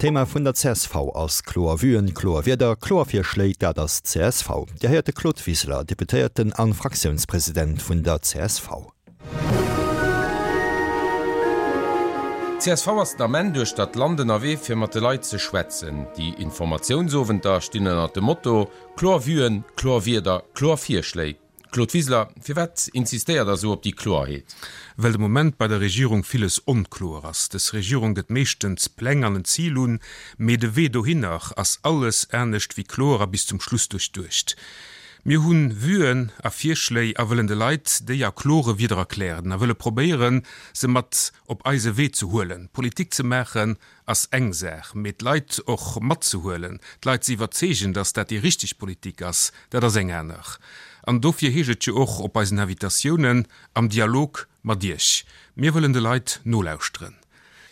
D'Thema vun der csv ass kloer Vuen, kloer Wierder, kloer Virschléi, dat ass csv. Dir héiert de Claude Wiseler, Deputéierten an Fraktiounspresident vun der csv. Csv ass den Ament duerchter d'Land ënnerwee fir mat de Leit ze schwätzen. Déi Informatiounsowenter stinn ënnert dem Motto, Kloer Vuen, kloer Wierder, kloer Virschléi. Claude Wiseler, firwat insistéiert Der esou op déi Kloerheet? Well de Moment bei der Regierung villes onkloer ass. Dës Regierung gëtt meeschtens Pläng an en Zil un, mee de Wee dohinner ass alles anescht wéi kloer a bis zum Schluss duerchduecht. Mir hu Vuen a Virschléi a wëllen de Leit déi a klore Wieder erklären a wëlle probéieren, se mat op eise Wee ze huelen. Politik ze maachen ass eng Saach, mee d'Leit och matzehuelen, d'Leit ze iwwerzeegen, datt dat déi richteg Politik ass, dat ass eng aner. An dofir heescht et jo och op eisen Invitatiounen, am Dialog mat Iech. Mir wëllen de Leit nolauschteren.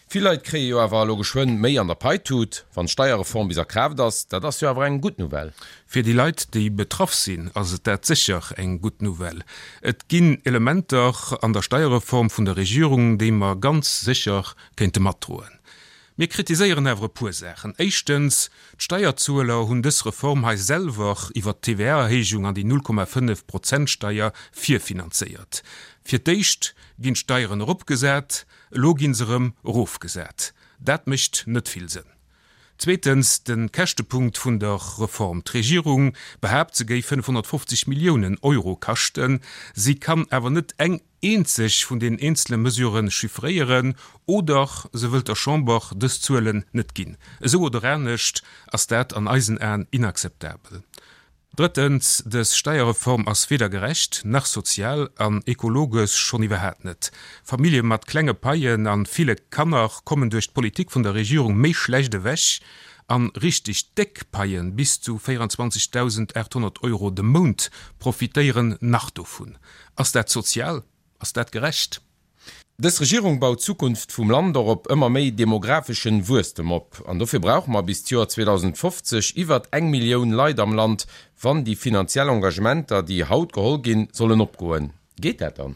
Vill Leit kréie jo awer elo geschwënn méi an der Paitut, wann d'Steierreform bis a Kraaft ass. Dat ass jo awer eng gutt Nouvelle. Fir déi Leit, déi betraff sinn, ass et dat sécher eng gutt Nouvelle. Et ginn Elementer an der Steierreform vun der Regierung, déi mer ganz sécher kéinte matdroen. Mir kritiséieren awer e puer Saachen. Éischtens, d'Steierzueler hunn dës Reform hei selwer iwwert d'TVA-Erhéijung an déi 0,5 Prozent-Steier virfinanzéiert. Fir d'éischt ginn d'Steieren eropgesat, elo gi se erëm erofgesat. Dat mécht net vill Sënn. Zweetens, de Käschtepunkt vun der Reform. D'Regierung behaapt, se géif 550 Milliounen Euro kaschten. Si kann awer net eng eenzeg vun den eenzele Mesurë chiffréieren oder se wëllt der Chamber dës Zuelen net ginn. Esou oder anescht ass dat an eisen Aen inakzeptabel. Drëttens, dës Steierreform ass weder gerecht, nach sozial an ekologesch schonn iwwerhaat net. Famillje mat klenge Paien an ville Kanner kommen duerch d'Politik vun der Regierung méi schlecht ewech an richteg déck Paien bis zu 24.800 Euro de Mount profitéieren nach dovun. Ass dat sozial? Ass dat gerecht? Dës Regierung baut d'Zukunft vum Land och op ëmmer méi demographeschen Wuesstem op. An dofir brauche mer bis d'Joer 2050 iwwert eng Millioun Leit am Land, wann déi finanziell Engagementer, déi haut geholl ginn, sollen opgoen. Geet dat dann?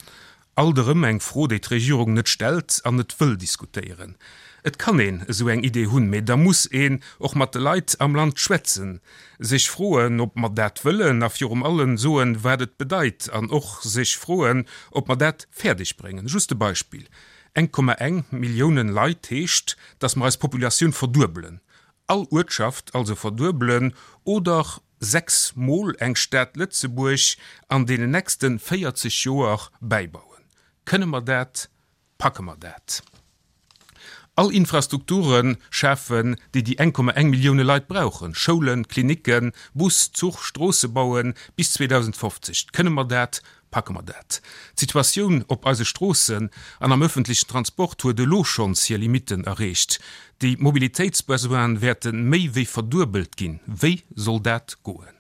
Alt erëm eng Fro, déi d'Regierung net stellt an net wëll diskutéieren. Et kann een esou eng Idee hunn, mee da muss een och mat de Leit am Land schwätzen, sech froen, ob mer dat wëllen a virum allem soen, wat et bedeit an och sech froen, ob mer dat fäerdeg bréngen. Just e Beispill, 1,1 Milliounen Leit heescht, datt mer eis Populatioun verduebelen, all Uertschaft also verduebelen oder 6 mol eng Stad Lëtzebuerg an deenen nächste 40 Joer bäibauen. Kënne mer dat? Packe mer dat? All Infrastrukture schafen, déi déi 1,1 Millioune Leit brauchen, Schoulen, Klinicken, Bus, Zuch, Stroosse bauen, bis 2050. Kënne mer dat? Packe mer dat? D'Situatioun op eise Stroossen an am öffentlechen Transport huet elo schonns hir Limitten erreecht. Déi Mobilitéitsbesoine wäerte méi wéi verduebelt ginn. Wéi soll dat goen?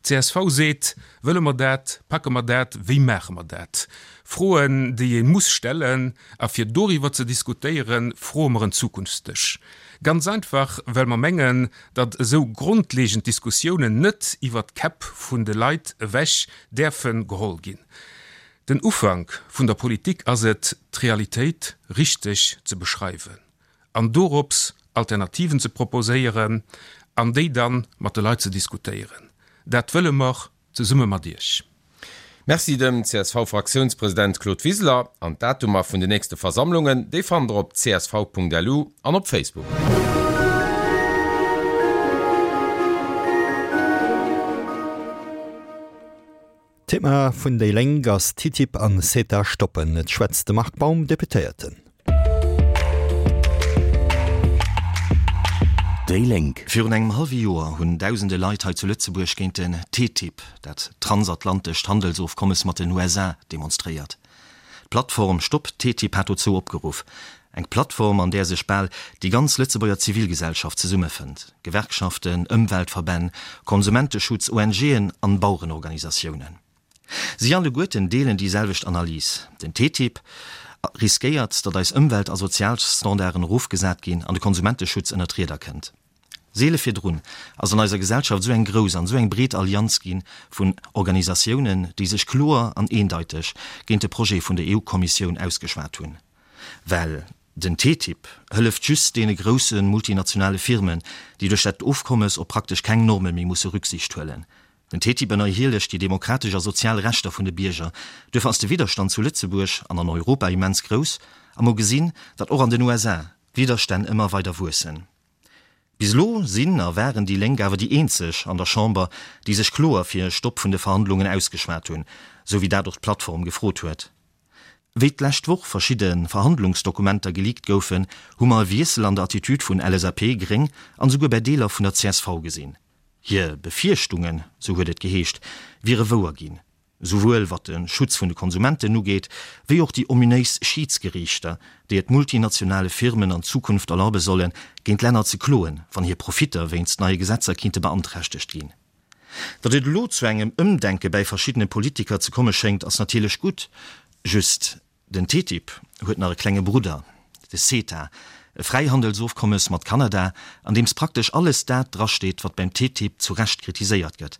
Csv seet, Wëlle mer dat? Packe mer dat? Wéi maache mer dat? Froen, déi ee muss stellen. A fir doriwwer ze diskutéieren, froe mer en Zukunftsdësch. Ganz einfach, well mer mengen, datt esou grondlegend Diskussiounen net iwwert d'Käpp vun de Leit ewech däerfe geholl ginn. Den Ufank vun der Politik ass et, d'Realitéit richteg ze beschreiwen. an dorops Alternativen ze proposéieren an déi dann mat de Leit ze diskutéieren. Dat wëlle mer zesumme mat Iech. Merci dem CSV-Fraktiounspresident Claude Wiseler. An d'Datumer vun de nächste Versammlungen, déi fannt der op csv.lu an op Facebook. D'Thema vun déi Lénk ass TTIP an CETA stoppen. Et schwätzt de Marc Baum, Deputéierten. Déi Lénk. Virun engem hallwe Joer hunn dausende Leit hei zu Lëtzebuerg géint den TTIP, dat transatlantescht Handelsofkommes mat den USA, demonstréiert. D'Plattform Stopp TTIP hat dozou opgeruff. Eng Plattform, an där sech bal déi ganz Lëtzebuerger Zivilgesellschaft zesummefënnt, Gewerkschaften, Ëmweltverbänn, Konsumenteschutz, ONGen an Bauerenorganisatiounen. Si alleguerten deelen déi selwecht Analys, Den TTIP riskéiert, datt eis Ëmwelt a Sozialstandarden erofgesat ginn an de Konsumenteschutz ënner d'Rieder kënnt. Seele virdrun ass an eiser Gesellschaft esou eng grouss an esou eng breet Allianz gi vun Organisatiounen, déi sech kloer an eendeiteg géint de Projet vun der EU-Kommissioun ausgeschwat hunn. Well. Den TTIP hëlleft just deene grousse multinationale Firmen, déi duerch dat Ofkommes op praktesch keng Norme méi musse Rücksicht huelen. Den TTIP ënnerhielegt déi demokratesch a sozial Rechter vun de Bierger. Duerfir ass de Widderstand zu Lëtzebuerg an an Europa immens grouss a mer gesinn, datt och an den USA d'Widderstänn ëmmer weider wuessen. Bis elo sinn a waren déi Lénk awer déi eenzeg an der Chamber, déi sech kloer fir e Stopp vun de Verhandlungen ausgeschwat hunn, sou wéi dat och d'Plattform gefrot huet. Wéi d'lescht Woch verschidde Verhandlungsdokumenter geleakt goufen, hu mer e Wiessel an der Attitude vun LSAP, Gréng an esouguer bäi Deeler vun der csv gesinn. Hir Befierchtungen, sou huet et geheescht, wiere wouer ginn, souwuel wat de Schutz vun de Konsumenten ugeet, wéi och déi ominéis Schiidsgeriichter, déi et multinationale Firmen an Zukunft erlaube sollen, géint Länner ze kloen, wann hir Profitter wéinst neie Gesetzer kinnte beanträchtegt ginn. Datt et elo zu engem Ëmdenke bäi verschiddene Politiker ze komme schéngt, ass natierlech gutt. Just, den TTIP huet nach e klenge Brudder, de CETA, e Fräihandelsofkommes mat Kanada, an deems praktesch alles dat drasteet, wat beim TTIP zu Recht kritiséiert gëtt.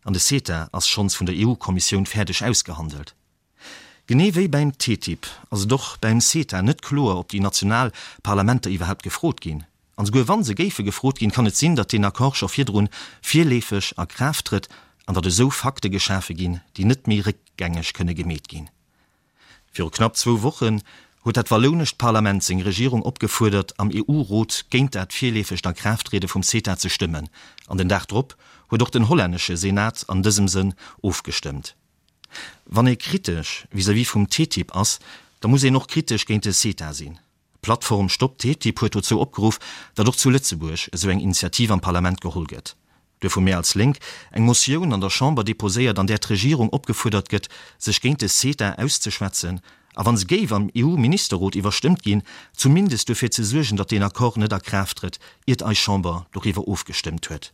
An de CETA ass schonns vun der EU-Kommissioun fäerdeg ausgehandelt. Genee wéi bäim TTIP ass et och bäim CETA net kloer, ob déi national Parlamenter iwwerhaapt gefrot ginn. An esouguer wa se géife gefrot ginn, kann et sinn, datt deen Accord scho virdrun virleefeg a Kraaft trëtt an datt esou Fakte geschafe ginn, déi net méi réckgängeg kënne gemeet ginn. Viru knapp zwou Wochen huet dat wallounescht Parlament seng Regierung opgefuerdert, am EU-Rot géint dat virleefegt A-Kraaft-Triede vum CETA ze stëmmen. An den Dag drop huet och den hollännesche Senat an dësem Sënn ofgestëmmt. Wann ee kritesch vis-à-vis vum TTIP ass, da muss een och kritesch géint de CETA sinn. D'Plattform Stopp TTIP huet dozou opgeruff, datt och zu Lëtzebuerg esou eng Initiativ am Parlament geholl gëtt. Duerfir hu mir als Lénk eng Motioun an der Chamber deposéiert, an där d'Regierung opgefuerdert gëtt, sech géint de CETA auszeschwätzen a wa se géif am EU-Ministerrot iwwerstëmmt ginn, zumindest duerfir ze suergen, datt deen Accord net a Kraaft trëtt, iert eis Chamber doriwwer ofgestëmmt huet.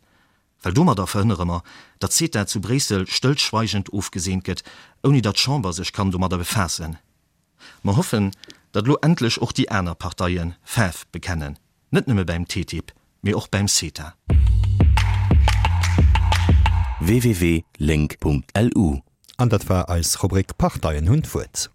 Well domadder verhënnere mer, datt CETA zu Bréissel stëllschweigend ofgeseent gëtt, ouni datt d'Chamber sech kann domadder befaassen. Mer hoffen, datt elo endlech och déi aner Parteie Faarf bekennen, net nëmme bäim TTIP, mee och bäim CETA. www.link.lu. An dat war eis Rubrik Parteien hunn d'Wuert.